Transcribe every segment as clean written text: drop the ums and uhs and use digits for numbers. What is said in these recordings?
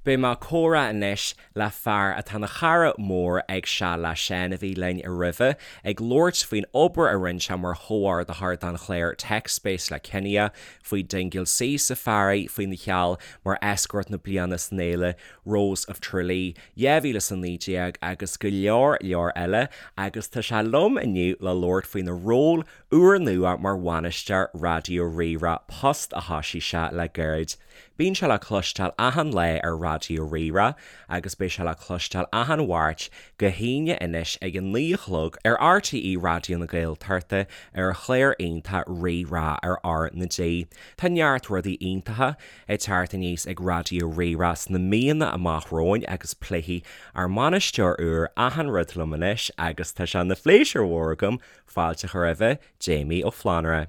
Beidh mé ag comhrá anois le fear atá ina chara mór ag Seal le Seán a bhí linn roimhe, ag labhairt faoin obair a rinne sé mar chomhordaitheoir don chlár TechSpace le Kinia, faoi Dingle Sea Safari, faoina sheal mar Escort na Bliana san fhéile Rose of Tralee 2019 agus go leor leor eile agus tá sé liom inniu le labhairt faoina ról úrnua mar bhainisteoir Raidió Rí-Rá, post a thosaigh sé le gairid. Bíonn sé le cloisteáil achan lá ar Raidió Rí-Rá agus beidh sé le cloisteáil achan Mháirt go hAoine anois ag a 9 a chlog ar RTÉ Raidió na Gaeltachta ar an chlár iontach Rí-Rá ar R na G. Tá neart rudaí iontacha ag teacht aníos ag Raidió Rí-Rá sna míonna amach romhainn agus pléifidh ár mbainisteoir úr achan rud liom anois agus tá sé ina phléisiúr mhór agam fáilte a chur roimhe, Jamie Ó Flannúra.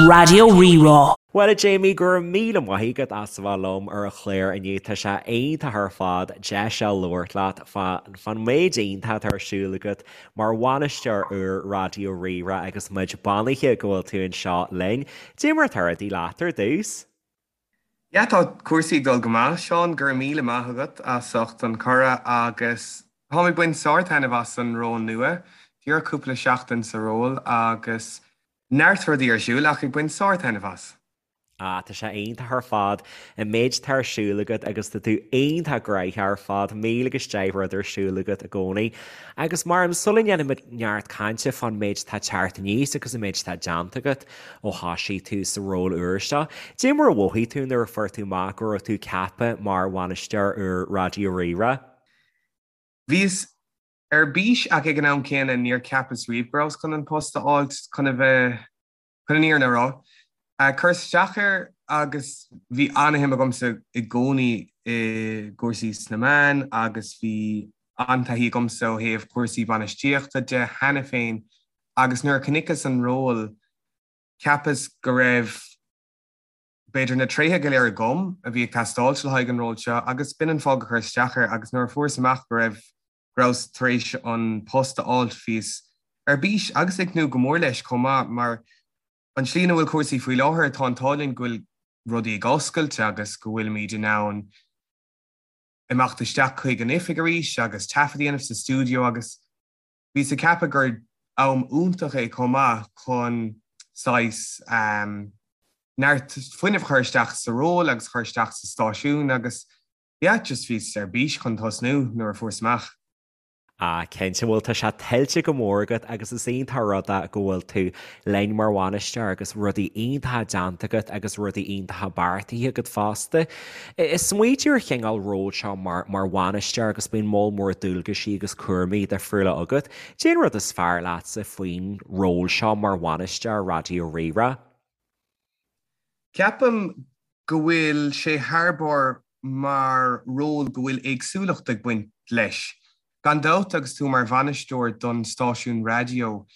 Raidió Rí-Rá. Bhuel a Jamie, go raibh míle maith agat as a bheith liom ar an chlár inniu. Tá sé iontach ar fad deis a labhairt leat fán méid iontach atá ar siúl agat mar bhainisteoir úr Raidió Rí-Rá agus muid beannaithe go bhfuil tú anseo linn. Cad é mar atá rudaí leat ar dtús? Yeah, tá cúrsaí ag dul go maith, Seán, go raibh míle maith agat as ucht an cuireadh agus táim ag baint sár-taitneamh as an ról nua. Díreach cúpla seachtain sa ról agus neart rudaí ar siúl ach ag baint sár-taitneamh as. Ah, tá sé iontach ar fad an méid atá ar siúl agat agus tá tú iontach gnoitheach ar fad, míle agus deich rud ar siúl agat i gcónaí. Agus mar sula ndéanfaimid neart cainte fán méid atá ag teacht aníos agus an méid atá déanta agat, Ó thosaigh tú sa ról úr seo, cad é mar a mhothaigh tú nuair a fuair tú amach go raibh tú ceaptha mar bhainisteoir úr Raidió Rí-Rá? Bhíos ar bís ach ag an am céanna níor cheapas riamh go rabhas chun an post a fháilt chun a bheith, chun an fhírinne a rá. Chuireas isteach air agus bhí an-shuim agamsa i gcónaí i gcúrsaí sna meáin agus bhí an-taithí agamsa ó thaobh cúrsaí bainistíochta de cheana féin Agus nuair a chonaiceas an ról, cheapas go raibh, b'fhéidir, na tréithe go léir agam a bhí ag teastáilt le haghaidh an ról seo agus b'in an fáth gur chuireas isteach air agus nuair a fuaireas amach go raibh, go rabhas tar éis an post a fháilt, bhíos ar bís agus ag tnúth go mór leis chomh maith mar an tslí ina bhfuil cúrsaí faoi láthair, tá an t-ádh linn go bhfuil rudaí ag oscailt agus go bhfuilimid in ann imeacht isteach chuig an oifig arís agus taifead a dhéanamh sa stiúideo agus Bhíos ag ceapadh gur am iontach é chomh maith chun saghas neart fuinnimh a chur isteach sa ról agus a chur isteach sa stáisiún agus yeah, just bhíos ar bís chun tosnú nuair a fuaireas amach. Ah, cinnte, bhuel tá sé tuillte go mór agat agus is iontach an rud é go bhfuil tú linn mar bhainisteoir agus rudaí iontacha déanta agat agus rudaí iontacha beartaithe agat fosta. Ag smaoitiú ar chineál ról seo mar mar bhainisteoir agus bíonn moll mór dualgaisí agus cúraimí difriúla agat. Cén rud is fearr leatsa faoin ról seo mar bhainisteoir Raidió Rí-Rá? Ceapaim go bhfuil sé thar barr mar ról go bhfuil éagsúlacht ag baint leis. Gan dabht agus tú mar bhainisteoir don stáisiún raidió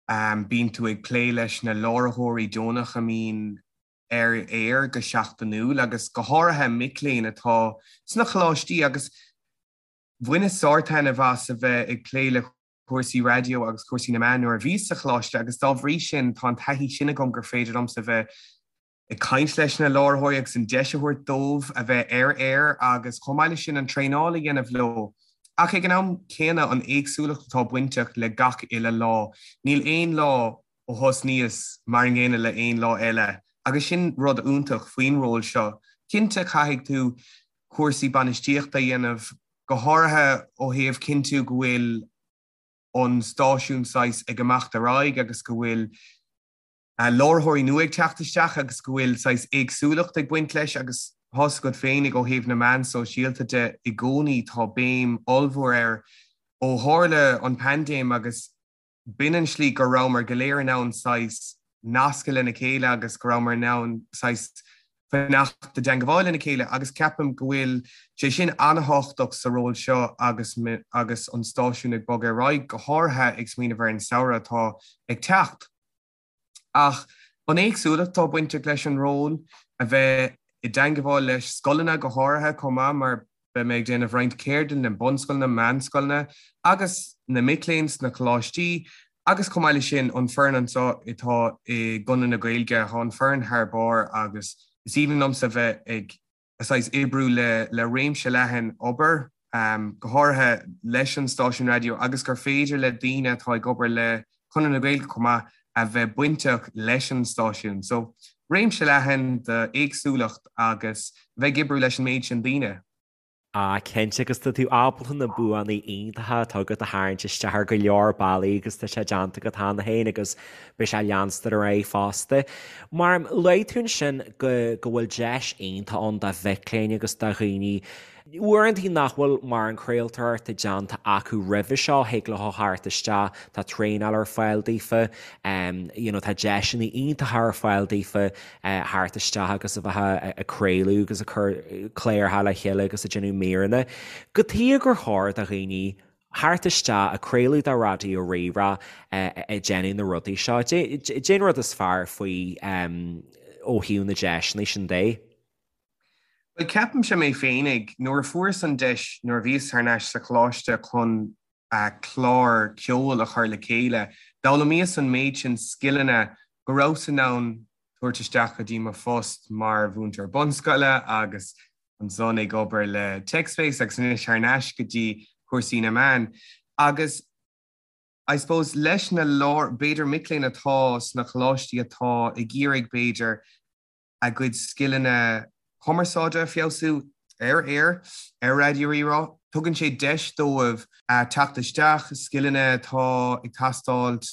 bíonn tú ag plé leis na láithreoirí deonach a mbíonn ar aer go seachtainiúil agus go háirithe mic léinn atá sna coláistí agus bhaineas sártaitneamh as a bheith ag plé le cúrsaí raidió agus cúrsaí na meán nuair a bhíos sa choláiste agus dá bhrí sin tá an taithí sin agam gur féidir liomsa a bheith ag caint leis na láithreoirí agus an deis a thabhairt dóibh a bheith ar aer agus chomh maith leis sin an traenáil a dhéanamh leo. Ach ag an am céanna an éagsúlacht atá bainteach le gach uile lá. Níl aon lá ó thosnaíos mar an gcéanna le aon lá eile agus sin rud iontach faoin ról seo. Cinnte caithfidh tú cúrsaí bainistíochta a dhéanamh, go háirithe ó thaobh cinntiú go bhfuil an stáisiún saghas ag imeacht ar aghaidh agus go bhfuil láithreoirí nua ag teacht isteach agus go bhfuil saghas éagsúlacht ag baint leis agus tá's agat féinig ó thaobh na meán sóisialta de i gcónaí tá béim ollmhór air ó tharla an paindéim agus B'in an slí go rabhamar go léir in ann saghas nascadh lena chéile agus go rabhamar in ann saghas fanacht i dteangabháil lena chéile agus ceapaim go bhfuil sé sin an-thábhachtach sa ról seo agus agus an stáisiún ag bogadh ar aghaidh, go háirithe ag smaoineamh ar an samhradh atá ag teacht. Ach an éagsúlacht atá bainteach leis an ról, a bheith i dteangabháil leis scoileanna go háirithe chomh maith mar beidh mé ag déanamh roinnt ceardlann le bunscoileanna, meánscoileanna agus na mic léinn sna coláistí agus chomh maith leis sin an foireann anseo atá i gConradh na Gaeilge, tá an foireann thar barr agus is aoibhinn liomsa bheith ag. Saghas oibriú le le réimse leathan obair, go háirithe leis an stáisiún raidió agus gur féidir le daoine atá ag obair le Conradh na Gaeilge chomh maith a bheith bainteach leis an stáisiún. So, réimse leathan d'éagsúlacht agus bheith ag oibriú leis an méid sin daoine. Ah, cinnte, agus tá tú ábalta na buanna iontacha atá agat a tharraingt isteach ar go leor bealaí agus tá sé déanta agat cheana féin agus beidh sé ag leanstan ar aghaidh fosta. Mar luaigh tú ansin go go bhfuil deis iontach ann do mhic léinn agus do dhaoine uaireanta nach bhfuil mórán craoltóireachta déanta acu roimhe seo, thig leo theacht isteach, tá traenáil ar fáil daofa, you know tá deiseanna iontacha ar fáil daofa theacht isteach agus a bheith ag craoladh agus ag cur cláracha le chéile agus ag déanamh míreanna. Cad chuige gur chóir do dhaoine theacht isteach ag craoladh do Raidió Rí-Rá ag déanamh na rudaí seo. Cén rud is fearr faoi ó thaobh na deiseanna sin de? Bhuel, ceapaimse mé féinig, nuair a fuaireas an deis nuair a bhíos thar n-ais sa choláiste chun clár ceoil a chur le chéile, d'fhoghlaimíos an méid sin scileanna go rabhas in ann tabhairt isteach go dtí mo phost mar mhúinteoir bunscoile agus ansan ag obair le TechSpace agus anois thar n-ais go dtí cúrsaí na meán. Agus I suppose leis na lár, b'fhéidir mic léinn atá sna coláistí atá ag iarraidh b'fhéidir a gcuid scileanna cumarsáide a feabhsú ar aer, ar Raidió Rí-Rá, tugann sé deis dóibh teacht isteach, scileanna atá ag teastáilt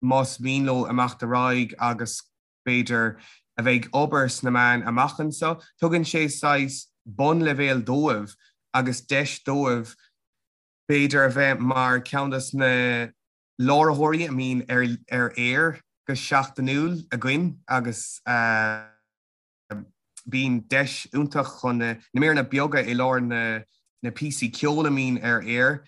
más mian leo imeacht ar aghaidh agus b'fhéidir, a bheith ag obair sna meáin amach anseo. Tugann sé saghas bunleibhéal dóibh agus deis dóibh, b'fhéidir, a bheith mar ceann de na láithreoirí a mbíonn ar aer go seachtainiúil againn agus bíonn deis iontach chun na míreanna beaga i lár na píosaí ceoil a mbíonn ar aer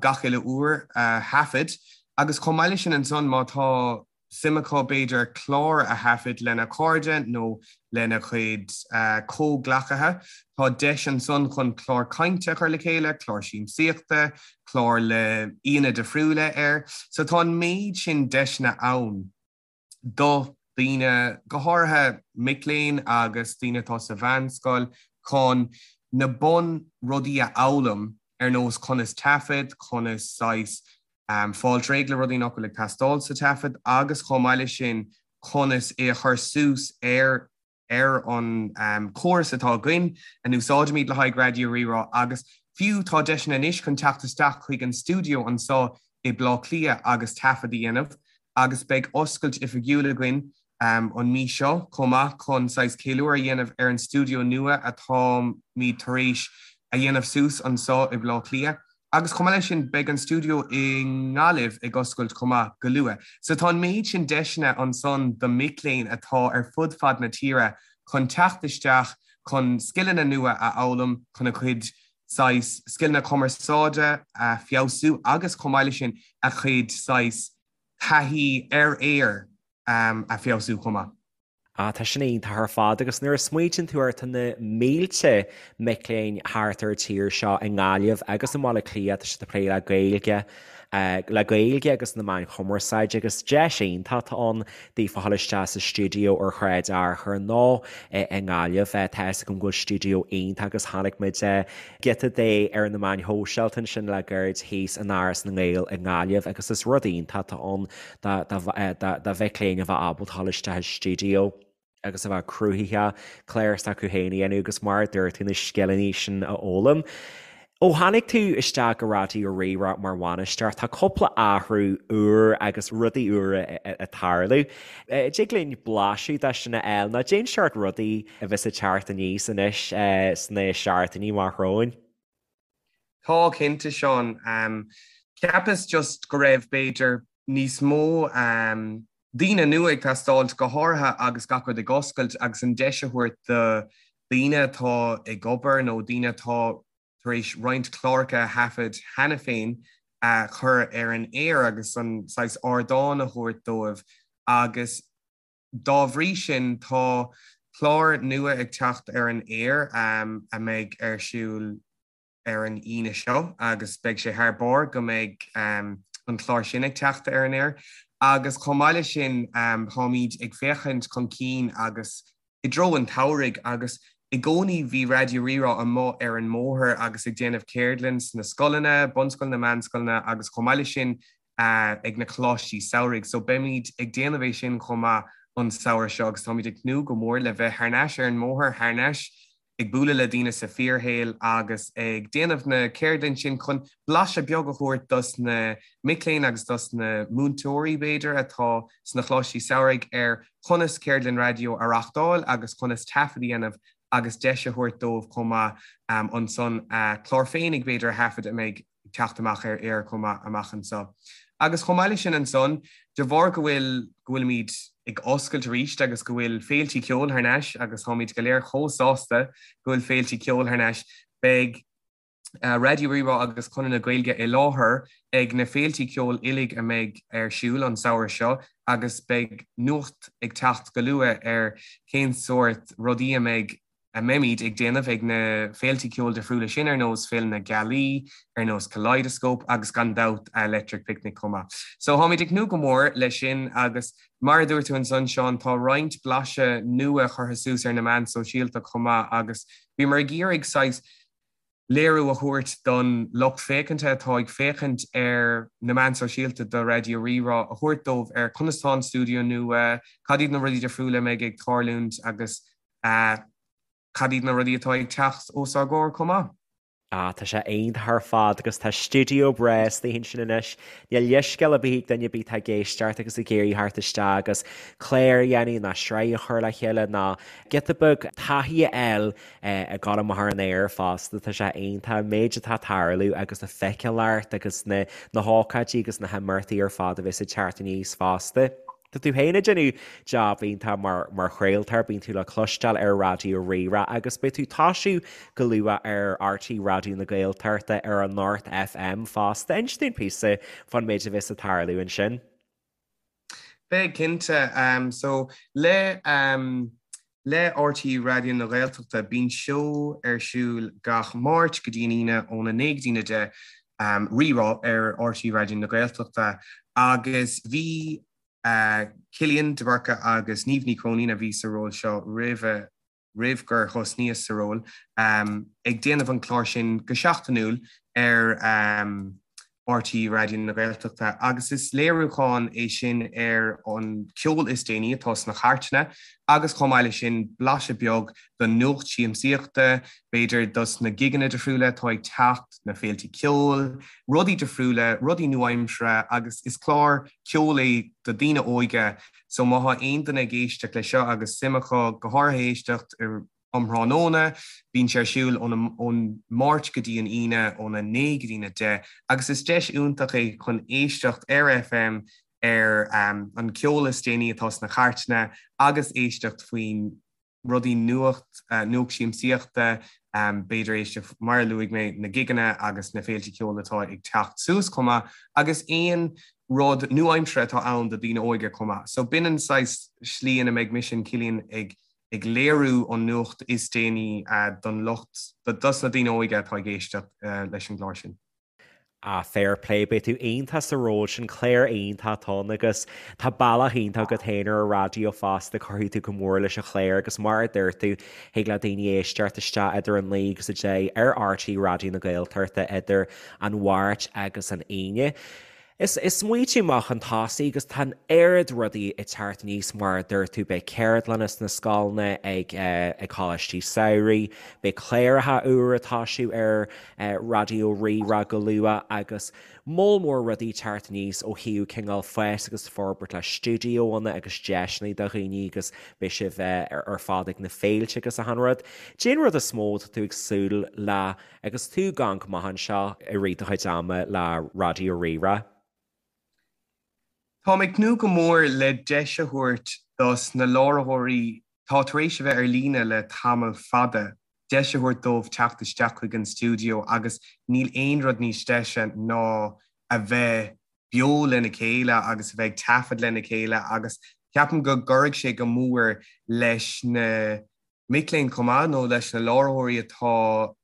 gach uile uair a thaifead. Agus chomh maith leis sin ansan, má tá suim acu b'fhéidir clár a thaifead lena cairde nó lena gcuid comhghleacaithe. Tá deis ansan chun clár cainte a chur le chéile, clár siamsaíochta, clár le aíonna difriúla air. So tá an méid sin deiseanna ann do dhaoine, go háirithe mic léinn agus daoine atá sa mheánscoil, chun na bun rudaí a fhoghlaim ar nós conas taifead, conas saghas fáilt réidh le rudaí nach bhfuil ag teastáil sa taifead agus chomh maith leis sin conas é a chur suas ar ar an chóras atá againn a n-úsáidimid le haghaidh Raidió Rí-Rá agus fiú tá deiseanna anois chun teacht isteach chuig an stiúideo anseo i Bleá Cliath agus taifead a dhéanamh agus beidh oscailt oifigiúil againn an mí seo chomh maith chun saghas ceiliúradh a dhéanamh ar an stiúideo nua atáimid tar éis a dhéanamh suas anseo i Bleá Cliath. Agus chomh maith leis sin beidh an stiúideo i nGaillimh ag oscailt chomh maith go luath. So tá an méid sin deiseanna ansan do mic léinn atá ar fud fad na tíre chun teacht isteach chun scileanna nua a fhoghlaim, chun a gcuid saghas scileanna cumarsáide a feabhsú agus chomh maith leis sin a gcuid saghas taithí ar aer a feabhsú chomh maith. Ah, tá sin iontach ar fad agus nuair a smaoitíonn tú air tá na mílte mic léinn thart ar an tír seo i nGaillimh agus i mBaile Átha Cliath, tá siad ag plé le Gaeilge, le Gaeilge agus na meáin chumarsáide agus deis iontach atá ann daofa a dhul isteach sa stiúideo ar Shráid Fhearchair nó i nGaillimh. Tá fhios agam go bhfuil stiúideo iontach agus chonaic muid giota de ar na meáin shóisialta ansin le gairid thíos in Áras na nGael i nGaillimh agus is rud iontach atá ann do mhic léinn a bheith ábalta dhul isteach i stiúideo agus a bheith cruthaitheach, clár s'acu féin a dhéanamh agus mar a dúirt tú na scileanna sin a fhoghlaim. Ó tháinig tú isteach go Raidió Rí-Rá mar bhainisteoir, tá cúpla athrú úr agus rudaí úra ag tarlú. Dtig linn blaiseadh de sin a fháil nó cén seort rudaí a bheas ag teacht aníos anois sna seachtainí amach romhainn? Tá, cinnte, Seán. Cheapas just go raibh, b'fhéidir, níos mó daoine nua ag teastáilt, go háirithe agus gach rud ag oscailt agus an deis a thabhairt do dhaoine atá ag obair nó daoine atá tar éis roinnt cláracha a thaifead cheana féin a chur ar an aer agus an saghas ardán a thabhairt dóibh agus Dá bhrí sin, tá clár nua ag teacht ar an aer a mbeidh ar siúl ar an Aoine seo agus beidh sé thar barr go mbeidh an clár sin ag teacht ar an aer. Agus chomh maith leis sin, táimid ag féachaint chun cinn agus i dtreo an tsamhraidh agus. I gcónaí bhí Raidió Rí-Rá amuigh ar an mbóthar agus ag déanamh ceardlann sna scoileanna, bunscoileanna, meánscoileanna agus chomh maith leis sin ag na coláistí samhraidh. So beimid ag déanamh é sin chomh maith an samhradh seo agus táimid ag tnúth go mór le bheith thar n-ais ar an mbóthar, thar n-ais ag bualadh le daoine sa fíorshaol agus ag déanamh na ceardlann sin chun blaiseadh beag a thabhairt dos na mic léinn agus dos na múinteoirí b'fhéidir atá sna choláistí samhraidh ar chonas ceardlann raidió a reachtáil agus conas taifead a dhéanamh agus deis a thabhairt dóibh chomh maith ansan a clár féinig b'fhéidir a thaifead a mbeidh ag teacht amach ar aer chomh maith amach anseo. Agus chomh maith leis sin ansan, de bharr go bhfuil, go bhfuilimid ag oscailt arís agus go bhfuil féiltí ceoil thar n-ais agus táimid go léir chomh sásta go bhfuil féiltí ceoil thar n-ais, beidh Raidió Rí-Rá agus Conradh na Gaeilge i láthair ag na féiltí ceoil uilig a mbeidh ar siúl an samhradh seo agus beidh nuacht ag teacht go luath ar cén sórt rudaí a mbeidh a mbeimid ag déanamh ag na féiltí ceoil difriúla sin ar nós Féile na Gealaí, ar nós Kaleidoscope agus gan dabht Electric Picnic chomh maith. So táimid ag tnúth go mór leis sin agus mar a dúirt tú ansan Seán, tá roinnt blaiseadh nua curtha suas ar na meáin sóisialta chomh maith agus bhíomar ag iarraidh saghas léiriú a thabhairt don lucht féachanta atá ag féachaint ar na meáin sóisialta do Raidió Rí-Rá, a thabhairt dóibh ar conas tá an stiúideo nua, cad iad na rudaí difriúla a mbeidh ag tarlúint agus cad iad na rudaí atá ag teacht os ár gcomhair chomh maith. Ah, tá sé iontach ar fad agus tá stiúideo breá istigh ansin anois. Níl leithscéal ar bith ag duine ar bith atá ag éisteacht agus ag iarraidh theacht isteach agus clár a dhéanamh ná sraith a chur le chéile ná giota beag taithí a fháil ag gabháil amach ar an aer fosta. Tá sé iontach an méid atá ag tarlú agus na feiceálacht agus na na hócáidí agus na himeachtaí ar fad a bheas ag teacht aníos fosta. Tá tú féin ag déanamh jab iontach mar mar chraoltóir, bíonn tú le cloisteáil ar Raidió Rí-Rá agus beidh tú ag toisiú go luath ar RTÉ Raidió na Gaeltachta ar Anocht FM fosta. Inis dúinn píosa fán méid a bheas ag tarlú ansin. Beidh, cinnte. So, le le RTÉ Raidió na Gaeltachta, bíonn seó ar siúl gach Máirt go dtí an Aoine óna 9 go dtí a 10, Rí-Rá ar RTÉ Raidió na Gaeltachta agus bhí Cillian de Búrca agus Niamh Ní Chróinín a bhí sa ról seo roimhe roimh gur thosnaíos sa ról, ag déanamh an clár sin go seachtainiúil ar RTÉ Raidió na Gaeltachta agus is léiriúchán é sin ar an ceol is déanaí atá sna cairteanna agus chomh maith leis sin blaiseadh beag den nuacht siamsaíochta, b'fhéidir dos na gigeanna difriúla atá ag teacht, na féilte ceoil, rudaí difriúla, rudaí nua-aimseartha agus is clár ceoil é do daoine óige So má thá aon duine ag éisteacht leis seo agus suim acu, go háirithe éisteacht um thráthnóna, bíonn sé ar siúl ón Máirt go dtí an Aoine óna 9 go dtína 10 agus is deis iontach é chun éisteacht ar FM ar an ceol is déanaí atá sna cairteanna agus éisteacht faoin rudaí nuacht, nuacht siamsaíochta, b'fhéidir éisteacht, mar a luaigh mé, na gigeanna agus na féilte ceoil atá ag teacht suas chomh maith, agus aon rud nua-aimseartha atá ann do daoine óige chomh maith. So b'in an saghas slí ina mbeidh mise and Cillian ag ag léiriú an nuacht is déanaí don lucht, dos na daoine óige atá ag éisteacht leis an gclár sin. Ah, fair play, beidh tú iontach sa ról sin, clár iontach atá ann agus tá bealach iontach agat féin ar an raidió fosta, cuirfidh tú go mór leis an chlár agus mar a dúirt tú, thig le daoine éisteacht isteach idir a 9 agus 10 ar RTÉ Raidió na Gaeltachta idir an Mháirt agus an Aoine. Is smaoitiú amach chun tosaigh agus tá an oiread rudaí ag teacht aníos mar a dúirt tú, beidh ceardlanna sna scoileanna, ag ag coláistí samhraidh, beidh cláracha úra ag toisiú ar Raidió Rí-Rá go luath agus moll mór rudaí ag teacht aníos ó thaobh cineál fás agus forbairt le stiúideoanna agus deiseanna do dhaoine agus beidh sibh ar fad ag na féilte agus achan rud. Cén rud is mó atá tú ag súil le Agus tú ag amharc amach anseo i rith do chuid ama le Raidió Rí-Rá? Táim ag tnúth go mór le deis a thabhairt dos na láithreoirí atá tar éis a bheith ar líne le tamall fada, deis a thabhairt dóibh teacht isteach chuig an stiúideo agus níl aon rud níos deise ná a bheith beo lena chéile agus a bheith ag taifead lena chéile agus ceapaim go gcuirfidh sé go mór leis na mic léinn chomh maith, nó leis na láithreoirí atá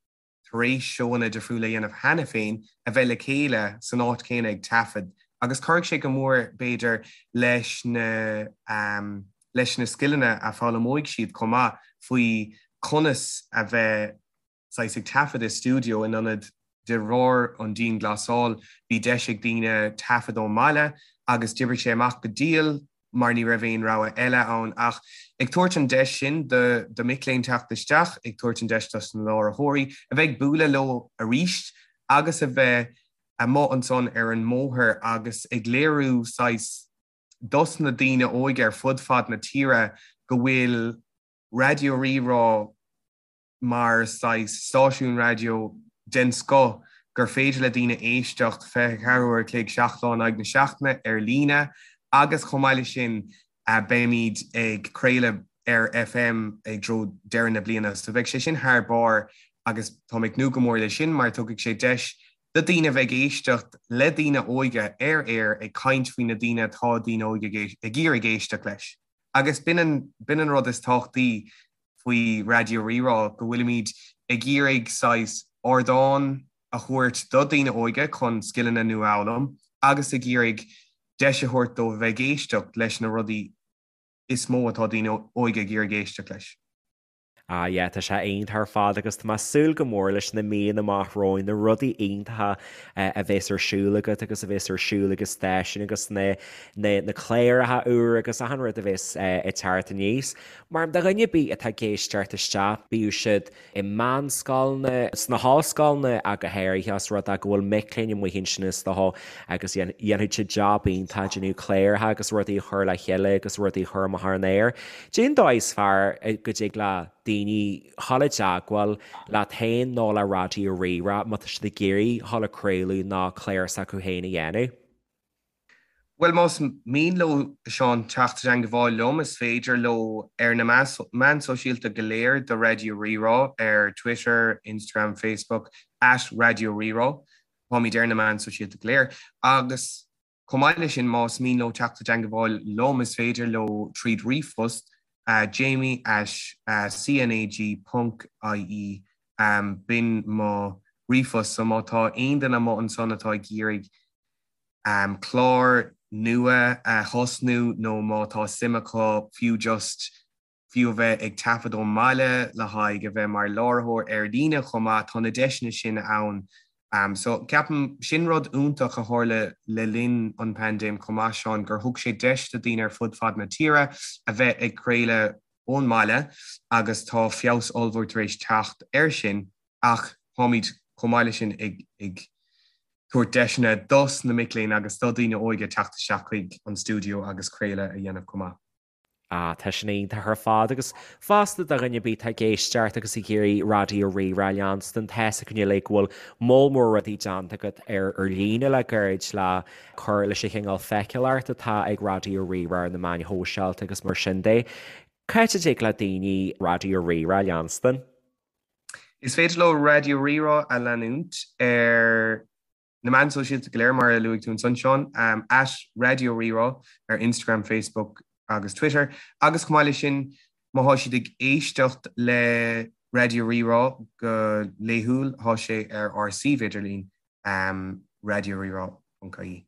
tar éis seóanna difriúla a dhéanamh cheana féin, a bheith le chéile san áit chéanna ag taifead. Agus cuirfidh sé go mór, b'fhéidir, leis na leis na scileanna a foghlaimeoidh siad chomh maith faoi. conas a bheith saghas ag taifead i stiúideo in ionad de bharr an dianghlasáil bhí deis ag daoine taifead ón mbaile agus d'oibrigh sé amach go diail mar ní raibh aon rogha eile ann ach ag tabhairt an deis sin do do mic léinn teacht isteach, ag tabhairt an deis dos na láithreoirí a bheith ag bualadh leo arís agus a bheith amuigh ansan ar an mbóthar agus ag léiriú saghas dos na daoine óige ar fud fad na tíre go bhfuil Raidió Rí-Rá mar saghas stáisiún raidió den scoth gur féidir le daoine éisteacht 24 uair a chloig, 7 lá in aghaidh na seachtaine ar líne agus chomh maith leis sin beimid ag craoladh ar FM i dtreo deireadh na bliana. So beidh sé sin thar barr agus táim ag tnúth go mór leis sin mar tugfaidh sé deis do daoine a bheith ag éisteacht le daoine óige ar aer ag caint faoi na daoine atá daoine óige ag iarraidh éisteacht leis. Agus b'in an, b'in an rud is tábhachtaí faoi Raidió Rí-Rá, go bhfuilimid ag iarraidh saghas ardán a thabhairt do daoine óige chun scileanna nua a fhoghlaim agus ag iarraidh deis a thabhairt dóibh a bheith ag éisteacht leis na rudaí is mó atá daoine óige ag iarraidh éisteacht leis. Ah yeah, tá sé iontach ar fad agus tá mé ag súil go mór leis na míonna amach romhainn, na rudaí iontacha a bheas ar siúl agat agus a bheas ar siúl ag an stáisiún agus na na na cláracha úr agus achan rud a bheas ag teacht aníos. Mar do dhuine ar bith atá ag éisteacht isteach, bíodh siad i meánscoileanna, sna hollscoileanna ach go háirithe, os rud é go bhfuil mic léinn amuigh ansin is dócha agus dhéanfaidh siad jab iontach ag déanamh cláracha agus rudaí a chur le chéile agus rudaí a chur amach ar an aer. Cén dóigh is fearr go dtig le daoine dhul i dteagmháil leat féin nó le Raidió Rí-Rá má tá siad ag iarraidh dhul ag craoladh nó clár s'acu féin a dhéanamh? Bhuel, más mian leo, a Sheáin, teacht i dteangabháil liom, is féidir leo ar na meáin sóisialta go léir do Raidió Rí-Rá, ar Twitter, Instagram, Facebook, at Raidió Rí-Rá. Táimid ar na meáin sóisialta go léir. Agus chomh maith leis sin, más mian leo teacht i dteangabháil liom, is féidir leo tríd ríomhphost, jamie at cnag ponc ie. B'in mo ríomhphost. So má tá aon duine amuigh ansan atá ag iarraidh clár nua a thosnú nó má tá suim acu fiú just fiú a bheith ag taifead ón mbaile le haghaidh a bheith mar láithreoir ar líne chomh maith, tá na deiseanna sin ann. So ceapaim sin rud iontach a tharla le linn an paindéim chomh maith, Seán, gur thug sé deis do daoine ar fud fad na tíre a bheith ag craoladh ón mbaile agus tá feabhas ollmhór tar éis teacht air sin ach táimid chomh maith leis sin ag ag tabhairt deiseanna dos na mic léinn agus do daoine óige teacht isteach chuig an stiúideo agus craoladh a dhéanamh chomh maith. Ah, tá sin iontach ar fad agus fosta do dhuine ar bith atá ag éisteacht agus ag iarraidh Raidió Rí-Rá a leanstan, tá's againn uilig go bhfuil moll mór rudaí déanta agat ar ar líne le gairid le cur leis an chineál feiceálacht atá ag Raidió Rí-Rá ar na meáin shóisialta agus mar sin de. Cá háit a dtig le daoine Raidió Rí-Rá a leanstan? Is féidir leo Raidió Rí-Rá a leanúint ar na meáin sóisialta go léir, mar a luaigh tú ansan, Seán, at Raidió Rí-Rá ar Instagram, Facebook agus Twitter. Agus chomh maith leis sin, má thá siad ag éisteacht le Raidió Rí-Rá go laethúil, thá sé ar ár suíomh idirlín, raidiorírá.ie.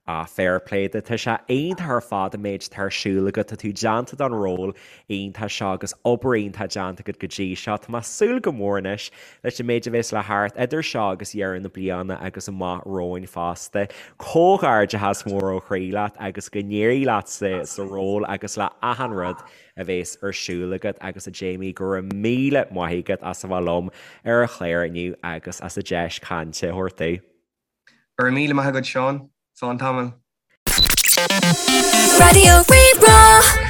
Ah, fair play duit. Tá sé iontach ar fad an méid atá ar siúl agat. Tá tú déanta don ról iontach seo agus obair iontach déanta agat go dtí seo. Tá mé ag súil go mór anois leis an méid a bheas le theacht idir seo agus deireadh na bliana agus amach romhainn fosta. Comhghairdeachas mór ó chroí leat agus go n-éirí leat sa ról agus le achan rud a bheas ar siúl agat agus a Jamie go raibh míle maith agat as a bheith liom ar an chlár inniu agus as an deis cainte a thabhairt domh. Go raibh míle maith agat Seán. Slán tamall. Raidió Rí-Rá.